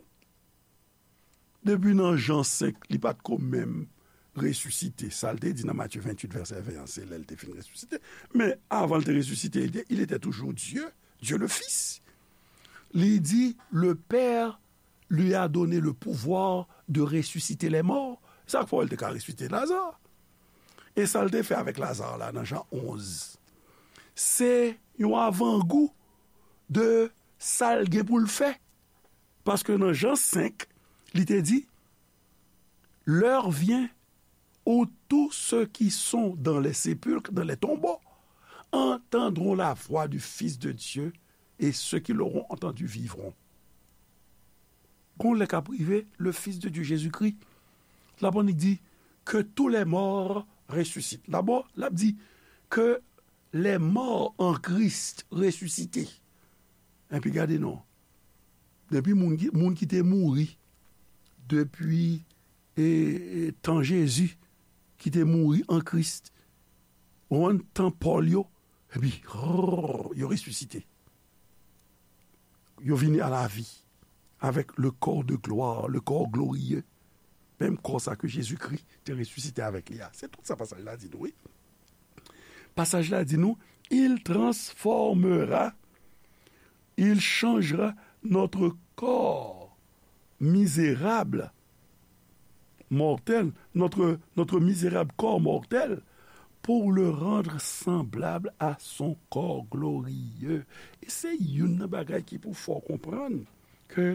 Depi nan Jan senk, li pa t ko menm resisite. Sa l te di nan Matthieu vingt-huit, verset vingt an, se lè l te fin resisite. Men avan l te resisite, il était, il était toujours Dieu, Dieu le Fils. Li di, le Père lui a donné le pouvoir de ressusciter les morts. Sa k fè w wè l te ka resisite Laza. E sa l te fè avèk Laza la nan Jan onz, se yon avangou de sa l gen pou l fè. Paske nan Jan senk, li te di, l'heure vient où tous ceux qui sont dans les sépulcres, dans les tombeaux, entendront la voix du Fils de Dieu, et ceux qui l'auront entendu vivront. Gon lè k ap rive, le Fils de Dieu, Jésus-Christ, l ap annik di, que tous les morts ressuscitent. Dabò, l ap di, que les morts en Christ ressuscités. Epi gade non. Depi moun ki, moun ki te mouri depi e, e, tan Jezi, ki te mouri an Kris, ou konprann, tan Pòl yo, epi, rrr, yo resisite. Yo vini a la vi avec le corps de gloire, le corps glorieux. Menm kò sa ke Jezikri te resisite avèk li a. Se tout sa pasaj la di nou, wi. Pasaj la di nou, il transformera, il changera notre corps misérable, mortel, notre, notre misérable corps mortel, pour le rendre semblable à son corps glorieux. E se youn nan bagay ki pou fè w konprann ke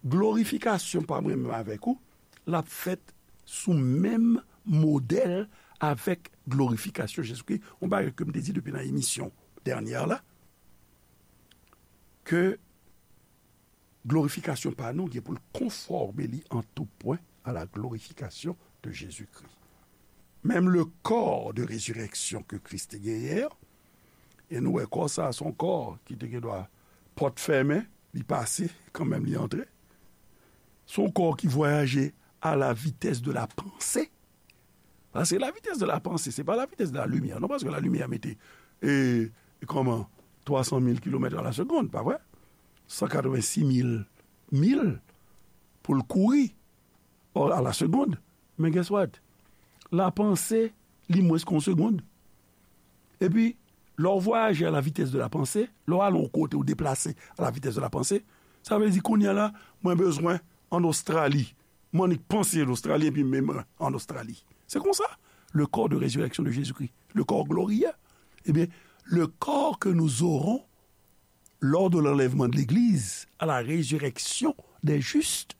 glorifikasyon pa mwen menm avèk ou, l ap fèt sou menm modèl avèk glorifikasyon Jezikri. Yon bagay ke m te di depi nan emisyon dènyè la, ke glorifikasyon pa nou gen pou l konfòme li an tou pwen à la glorification de Jésus-Christ. Menm le corps de résurrection ke Kris te genyen an, e nou wè kò sa a, se yon kò ki te gen dwa pòt fèmen, li pase, kanmenm li antre. Se yon kò ki vwayaje à la vitesse de la pensée. Paske la vitesse de la pensée, se pa la vitesse de la lumière, non, paske la lumière mete, e, kòman, twa san mil kilomèt a la segonn, pa vre? San katrevensis mil mil pou l kouri, or, a la segonn. Men guess what? Lapanse, li mwens ke yon segonn. Epi, lè w vwayaje a la vitès de la panse, lè w ale yon kote, ou deplase a la vitès de la panse, sa vle di kounye a la, mwen bezwen ann Ostrali. Mwen annik panse Ostrali, epi m, m ann Ostrali. Se konsa, le corps de résurrection de Jésus-Christ, le corps glorieux. Ebyen, le corps que nous aurons lors de l'enlèvement de l'Église, à la résurrection des justes,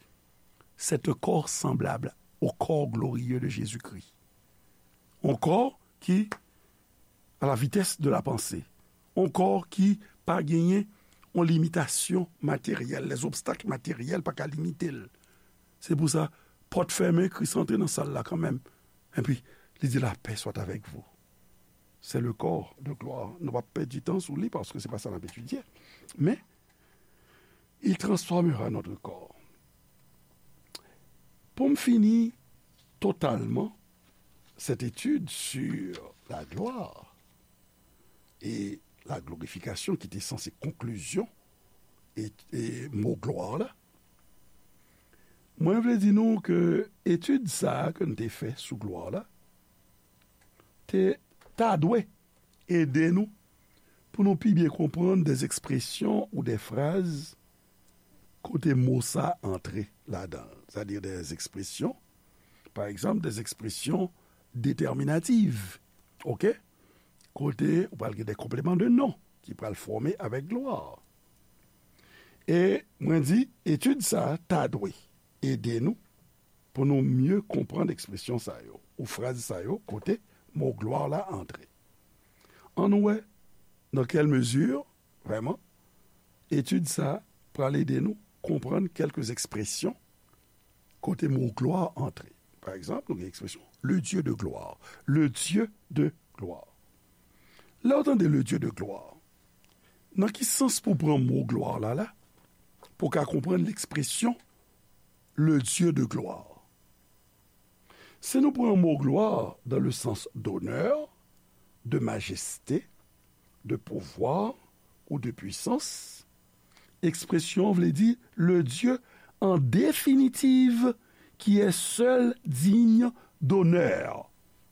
c'est un corps semblable au corps glorieux de Jésus-Christ. Un corps qui, à la vitesse de la pensée, un corps qui pa genyen yon limitasyon materyèl, les obstacles matériels pa ka limite l. Se pou sa, pòt fèmen, Kris antre nan sal la kanmenm. Epi, li di, la paix soit avec vous. C'est le corps de gloire. Nou p ap pèdi tan sou li, paske se pa sa n ap etidye. Men, il transformera notre corps. Pou m fini totalman cette étude sur la gloire et la glorification, ki te sanse konklizyon e, e mo glwa la, mwen vle di nou ke etid sa a ke n te fè sou glwa la, te, ta dwe ede nou pou nou pi byen konprann dè ekspresyon ou dè fraz kote mo sa antre ladan l. Sètadi dè ekspresyon, pa egzanp, dè ekspresyon detèminatif. Oke? Kote ou pral gen dè konpleman de non ki pral fòme avèk glwa. E mwen di, etid sa a ta dwe ede nou pou nou mye konprann ekspresyon sa yo, ou fraz sa yo, kote mo glwa la antre. Ann wè nan kèl mezi, vrèman, etid sa a pral ede nou konprann kèlke ekspresyon kote mo glwa antre. Pa egzanp, nou gen ekspresyon, le Dieu de gloire. Le Dieu de gloire. Lè w tande le Dieu de gloire, nan ki sans pou pran mo glwa la la, pou w ka konprann ekspresyon le Dieu de gloire? Si nou pran mo glwa dans le sens d'honneur, de majesté, de pouvoir ou de puissance, ekspresyon an vle di le Dieu en définitive qui est seul digne d'honneur.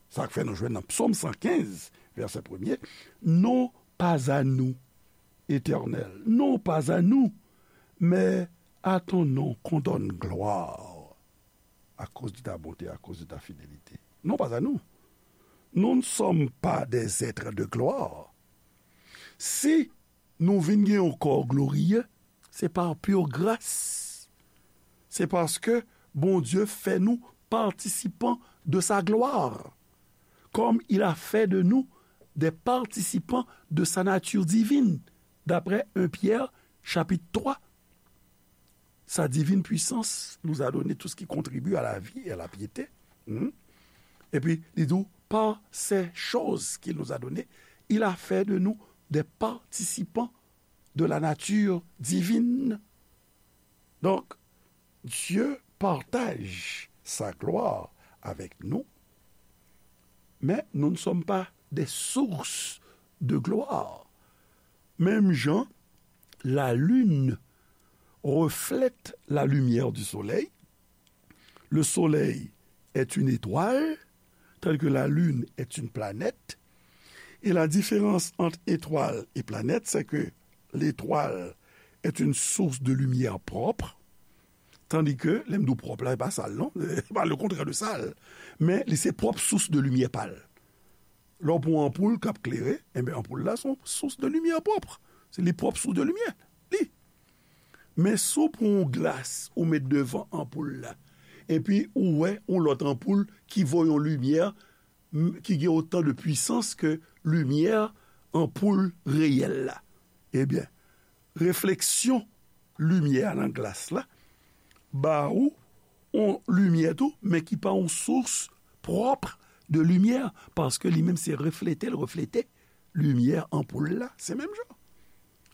Sa k fè nou jwenn nan Psaume cent quinze, verset premier, non pas à nous, Éternel, non pas à nous, mais à ton nom qu'on donne gloire, à cause de ta bonté, à cause de ta fidélité. Non pas à nous. Nous ne sommes pas des êtres de gloire. Si nou vin gen yon kò gloriye, se pa pur gras. Se paske Bondye fè nou patisipan de sa gloire, comme il a fait de nous des participants de sa nature divine, d'après un Pierre chapitre trois. Sa divine puissance nous a donné tout ce qui contribue à la vie et à la piété. Hmm? Epi, li di w, par ces choses qu'il nous a données, il a fait de nous des participants de la nature divine. Donc, Dieu partage sa gloire avec nous, mais nous ne sommes pas des sources de gloire. Menm jan la lune reflète la lumière du soleil, le soleil est une étoile, tandis que la lune est une planète, et la différence entre étoile et planète, c'est que l'étoile est une source de lumière propre, tandis que, lè m di w pwòp la, e pa sal non, e pa le contraire de sal, men li se pwòp sous de limyè pa l. Lè w pran yon anpoul k ap klere, enben, anpoul la se yon sous de limyè pwòp. Se li pwòp sous de limyè, li. Men si w pran yon glas ou met devan anpoul la, epi ou wè yon lòt anpoul ki voye yon limyè, m, ki gen otan de pwisans ke limyè anpoul reyèl la, ebyen, refleksyon limyè a nan glas la ba ou yon limyè tou, men ki pa yon sous pwòp de limyè, paske li menm se reflete l reflete limyè anpoul la, se menm jan.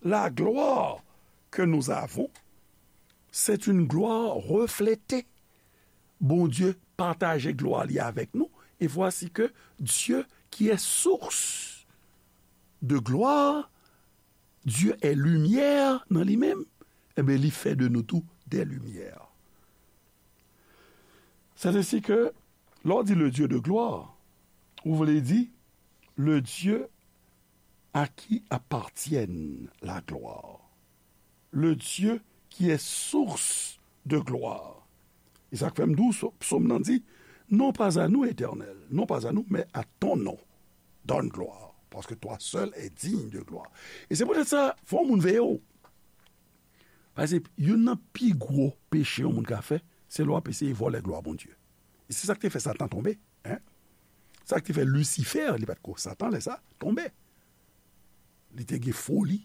La gloire que nous avons, c'est une gloire reflétée. Bondye pataje glwa li avèk nou, et voici que Dieu, qui est source de gloire, Dieu est lumière nan li menm, enben, li fè de nou tou des lumières. C'est ainsi que, lè w di le Dieu de gloire, ou vle di le Dieu à qui appartienne la gloire, le Dieu qui est source de gloire. E sa k fè m di w, psaume nan di, non pas à nous, Éternel, non pas à nous, mais à ton nom, donne gloire, parce que toi seul es digne de gloire. E se poutèt sa, fò moun veye w. Paske youn nan pi gwo peche yon moun ka fè, se lè w ap eseye vòlè glwa Bondye. E se sa k te fè Satan tonbe, hein? Sa k te fè Lisifè, li pa t ko Satan lè sa, tonbe. Li te gen foli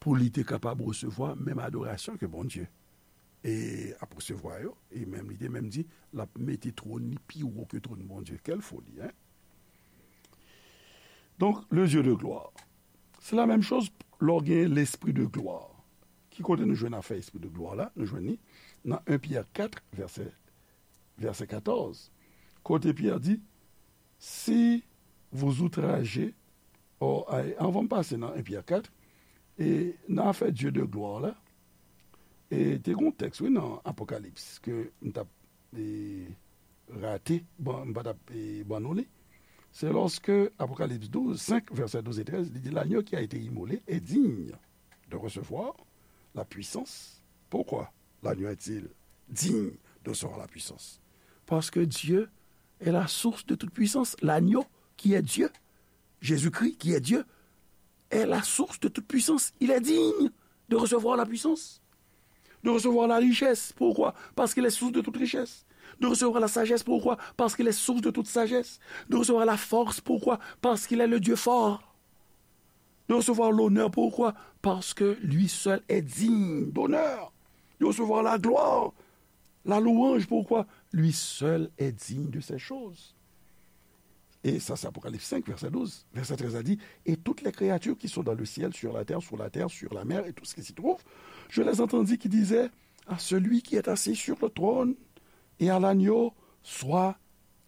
pou li te kapab resevwa menm adorasyon ke Bondye e ap resevwa yo, e menm li te menm di l ap mete twòn li pi wo ke twòn Bondye. Quelle folie, hein? Donk, le Dieu de gloire. Se la menm choz lè w gen l'esprit de gloire. Ki kote nou jwenn afè espri de glwa la? Nou jwenn li nan en Pyè kat, vèsè, vèsè katòz. Kote Pyè di, si vous outragez, oh, ay, anvan m pase nan en Pyè kat, e nan afè Dieu de gloire la, e te gen yon tèks, wi, nan Apokalips, ke m t ap, e, rate, ban, m pa t ap, e, ban nou li. C'est lorsque Apocalypse douze, cinq, versets douze et treize, il dit, l'agneau qui a été immolé est digne de recevoir la puissance. Pourquoi l'agneau est-il digne de recevoir la puissance? Parce que Dieu est la source de toute puissance. L'agneau qui est Dieu, Jésus-Christ qui est Dieu, est la source de toute puissance. Il est digne de recevoir la puissance, de recevoir la richesse. Pourquoi? Parce qu'il est source de toute richesse. De recevoir la sagesse. Pourquoi? Parce qu'il est source de toute sagesse. De recevoir la force. Pourquoi? Parce qu'il est le Dieu fort. De recevoir l'honneur. Pourquoi? Parce que lui seul est digne d'honneur. De recevoir la gloire, la louange. Pourquoi? Lui seul est digne de ces choses. Et ça, c'est Apocalypse cinq, verset douze. Verset treize a dit, et toutes les créatures qui sont dans le ciel, sur la terre, sous la terre, sur la mer, et tout ce qui s'y trouve, je les entendis qui disaient, à celui qui est assis sur le trône et à l'agneau, soit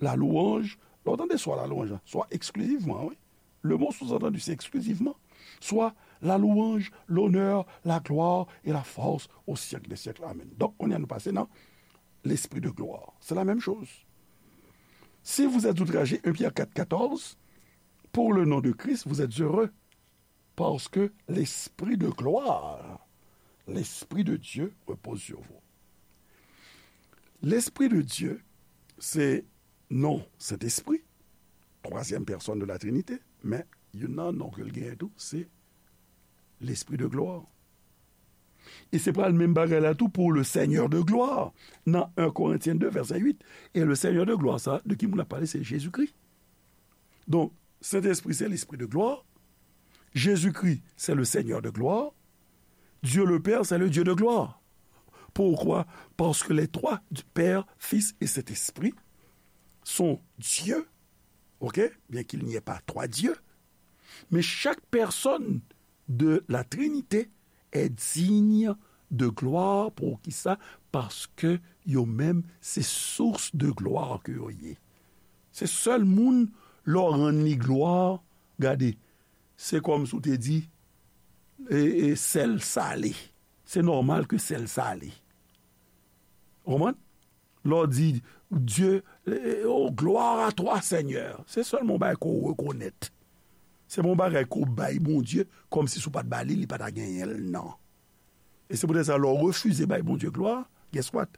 la louange. Lè w tande soit la louange, soit exclusivement, wi. Le mot sous-entendu, c'est exclusivement. Soit la louange, l'honneur, la gloire et la force au siècle des siècles. Amen. Donk, kounye a nou pase nan l'esprit de gloire. C'est la même chose. Si vous êtes outragés, un Pierre quatre quatorze, pour le nom de Christ, vous êtes heureux, parce que l'esprit de gloire, l'esprit de Dieu repose sur vous. L'esprit de Dieu, se non Sentespri, twazyèm pèsòn de la Trinite, men youn nan non ke l genyen tou, se Lespri de glwa. E se pral menm bagay la tou pour le Seigneur de gloire. Nan un Korentyen de, vèsè uit. E le Seigneur de gloire, sa, de ki moun ap pale? Se Jezikri. Donk, Sentespri, se Lespri de glwa. Jezikri, se le Seigneur de gloire. Dieu le Père, c'est le Dieu de gloire. Pourquoi? Parce que les trois, Père, Fils et Saint-Esprit, sont Dieu, ok? Bien qu'il n'y ait pas trois dieux, mais chaque personne de la Trinité est digne de gloire. Poukisa? Paske yo menm, se source de gloire ke yo ye. Se sèl moun, lè w rann li glwa, gade, se kòmsi w te di, e, e, sèl sale. Se nòmal ke sèl sale. Ou konprann? Lè w di, Dieu, e, oh, gloire à toi, Seigneur. Se sèlman yon bagay ke w rekonèt. Se pa yon bagay ke w bay Bondye, kòmsi si w pa t ba li, li pa ta genyen l, non. E se poutèt sa, lè w refize bay Bondye glwa, guess what?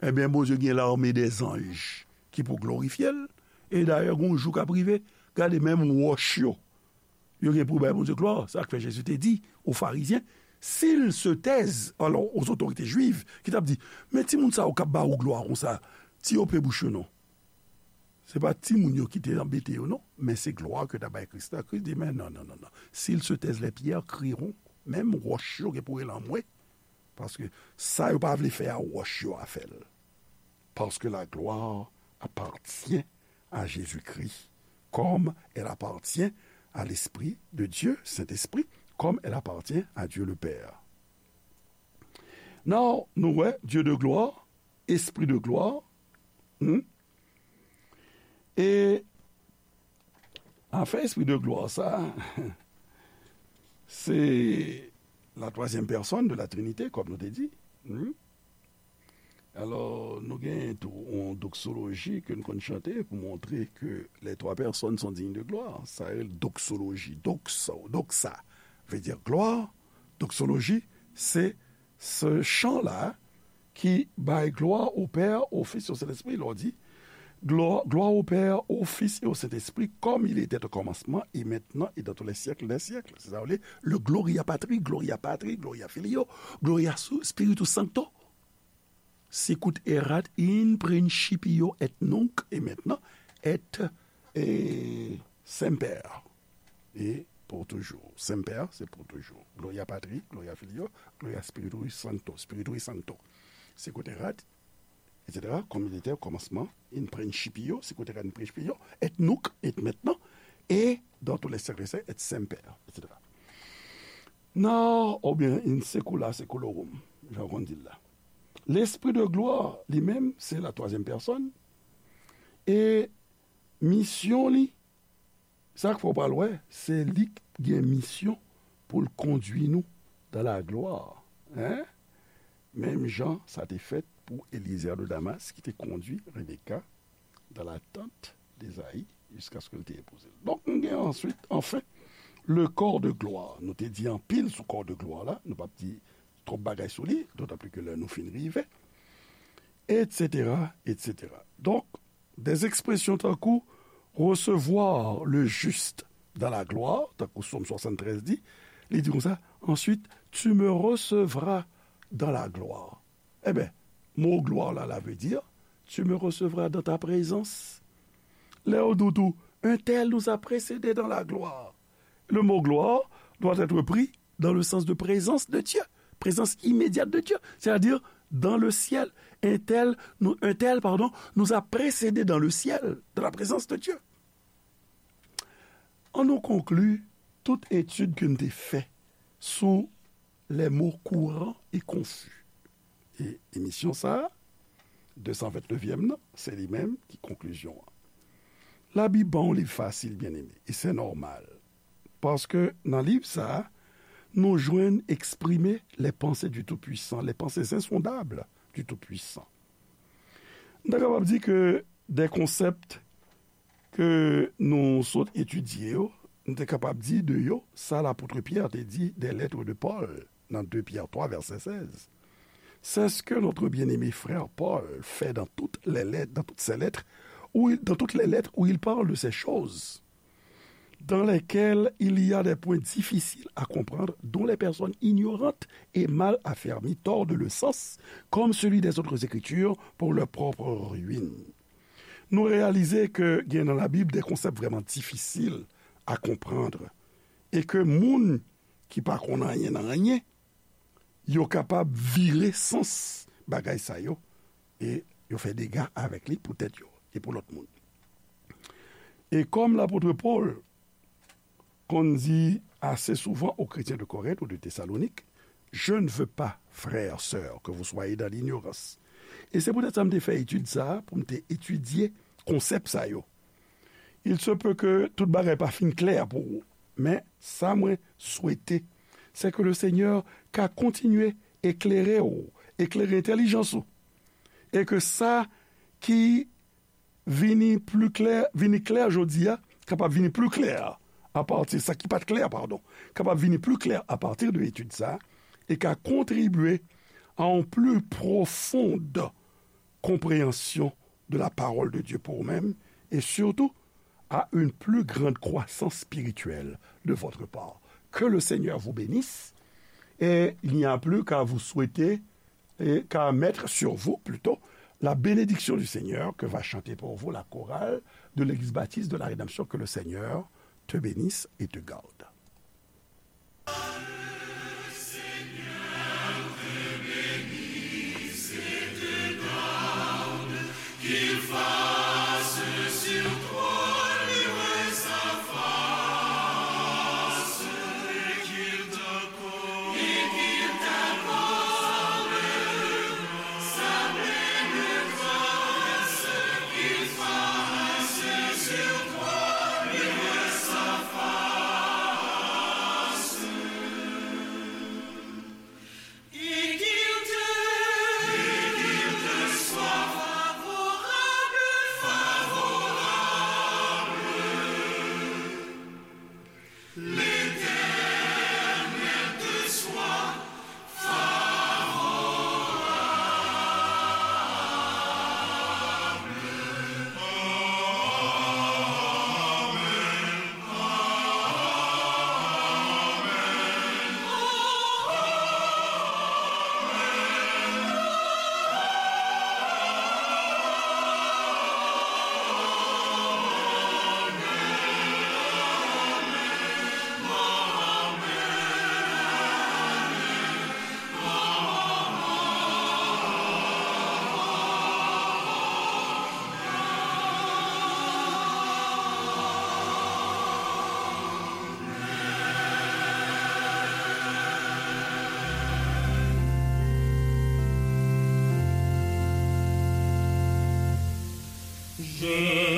Ebyen, Bondye gen lame dèzanj ki pou glorifye l. E dayè, gen yon jou k ap rive, gade, menm wòch yo, yo gen pou bay Bondye glwa. Sa k fè Jezi te di o Farizyen, s'ils se taisent, alò, aux autorités juives, ki t ap di, men timoun sa yo k ap ba ou glwa konsa, ti yo pe bouch yo non. Se pa timoun yo ki te anbete yo non, men se glwa ke t ap bay Kris la. Kris di, men non, non, non, non. S'ils se taisent, les pierres crieront. Menm wòch yo gen pou rele anmwe. Paske sa yo pa vle fè a, wòch yo a fè l. Parce que la gloire appartient à Jésus-Christ, comme elle appartient à l'Esprit de Dieu, Saint-Esprit, comme elle appartient à Dieu le Père. Now, nou wè, Dieu de gloire, Esprit de gloire, hmm? E afè Esprit de gloire sa, se la troisième personne de la Trinité, kòm nou te di. Hmm? Alò, nou gen tou yon doksoloji ke nou konn chante pou montre ke les trois personnes sont dignes de gloire. Sa rele doksoloji. Doxa, doxa vle di glwa. Doksoloji, se se chan la ki bay glwa au Père, au Fils et au Saint-Esprit. Lè w di, gloire, gloire au Père, au Fils et au Saint-Esprit, comme il était au commencement, et maintenant, et dans tous les siècles des siècles. Se sa w li, le Gloria Patri, Gloria Patri, Gloria Filio, Gloria Su-, Spiritus Sancto. Sicut erat in principio et nunc et maintenant et, et semper. Et pour toujours. Semper, c'est pour toujours. Gloria Patri, Gloria Filio, Gloria Spiritui Sancto, Spiritui Sancto. Sicut erat, et cetera, comme il était au commencement, in principio, sicut erat in principio, et nunc, et maintenant, et dans tous les siècles, et semper, et cetera. Non, oubyen in secula seculorum, jan w konn di l la. Lespri de glwa, li menm, se la twazyèm pèsòn. E misyon li, sa k fè w pral wè, se li k gen misyon pou l kondui nou dans la gloire. Hein? Menm jan sa te fèt pou Eliezer de Damas ki te kondui Rebecca dans la tente d'Ésaü jusqu'à ce que l te epouze l. Donk, nou gen answit, anfen, le corps de gloire. Nou te di anpil sou corps de gloire la, nou p ap di twòp bagay sou li, d'autant plus que lè nou fin rive, et cetera, et cetera. Donk, des expressions tankou recevoir le juste dans la gloire, tankou Sòm swasanntrèz di, li di konsa, ensuite, tu me recevras dans la gloire. Eben, mo glwa la, la vle di, tu me recevras dans ta présence. Lè yo di w tou, un tel nous a précédés dans la gloire. Le mot gloire doit être pris dans le sens de présence de Dieu, présence immédiate de Dieu, c'est-à-dire dans le ciel. Un tel, nous, un tel, pardon, nous a précédés dans le ciel, dans la présence de Dieu. Ann nou konkli tout etid ke n te fè sou les mots courants et confus. E emisyon sa a, de san vennnevyèm nan, se li menm ki konklizyon an. Labib pa yon liv fasil, byeneme, e se nòmal. Paske nan liv sa a, nou jwenn eksprime les pensées du Tout-Puissant, les pensées insondables du Tout-Puissant. Nou ta kapab di ke de konsèp ke nou sot etidye yo, nou te kapab di de yo sa lapot Pyè te di des lettres de Paul nan de Pyè twa vèsè sèz. C'est ce que notre bien-aimé frère Paul fait dans toutes les lettres, dans toutes ses lettres où il, dans toutes les lettres où il parle de ces choses, dans lesquelles il y a des points difficiles à comprendre, dont les personnes ignorantes et mal affermies tordent le sens, comme celui des autres écritures, pour leur propre ruine. Nou reyalize ke gen nan Labib de konsèp vrèman difisil a konprann e ke moun ki pa konn anyen nan anyen, yo kapab vire sans bagay sa yo e yo fè dega avèk li pou tèt yo e pou lòt moun. E kòm lapot Pòl konn di ase souvan aux chrétiens de Corinthe ou de Thessalonique, je ne veux pas, frères, sœurs, que vous soyez dans l'ignorance. E se poutèt sa m te fè etid sa a, pou m te etidye konsèp sa yo. Il se peut que tout bagay pa fin klè pou ou, men sa mwen swete, se ke le Senyè ka kontinye eklere w, eklere entèlijans ou, e ke sa ki vini pli klè, vini klè jodi a, kapab vini pli klè apati, sa ki pa t klè, padon, kapab vini pli klè apati de etid sa, e ka kontribye à une plus profonde compréhension de la parole de Dieu pour vous-même, et surtout à une plus grande croissance spirituelle de votre part. Que le Seigneur vous bénisse, et il n'y a plus qu'à vous souhaiter, et qu'à mettre sur vous plutôt, la bénédiction du Seigneur que va chanter pour vous la chorale de l'église baptiste de la Rédemption. Que le Seigneur te bénisse et te garde. Qu'il fasse sur toi luire sa face, et qu'il t'accorde, et qu'il t'accorde sa pleine grâce, qu'il fasse sur toi luire sa face. Et qu'il te, et qu'il te soit favorable, favorable. L'Éternel te soit favorable. Amen.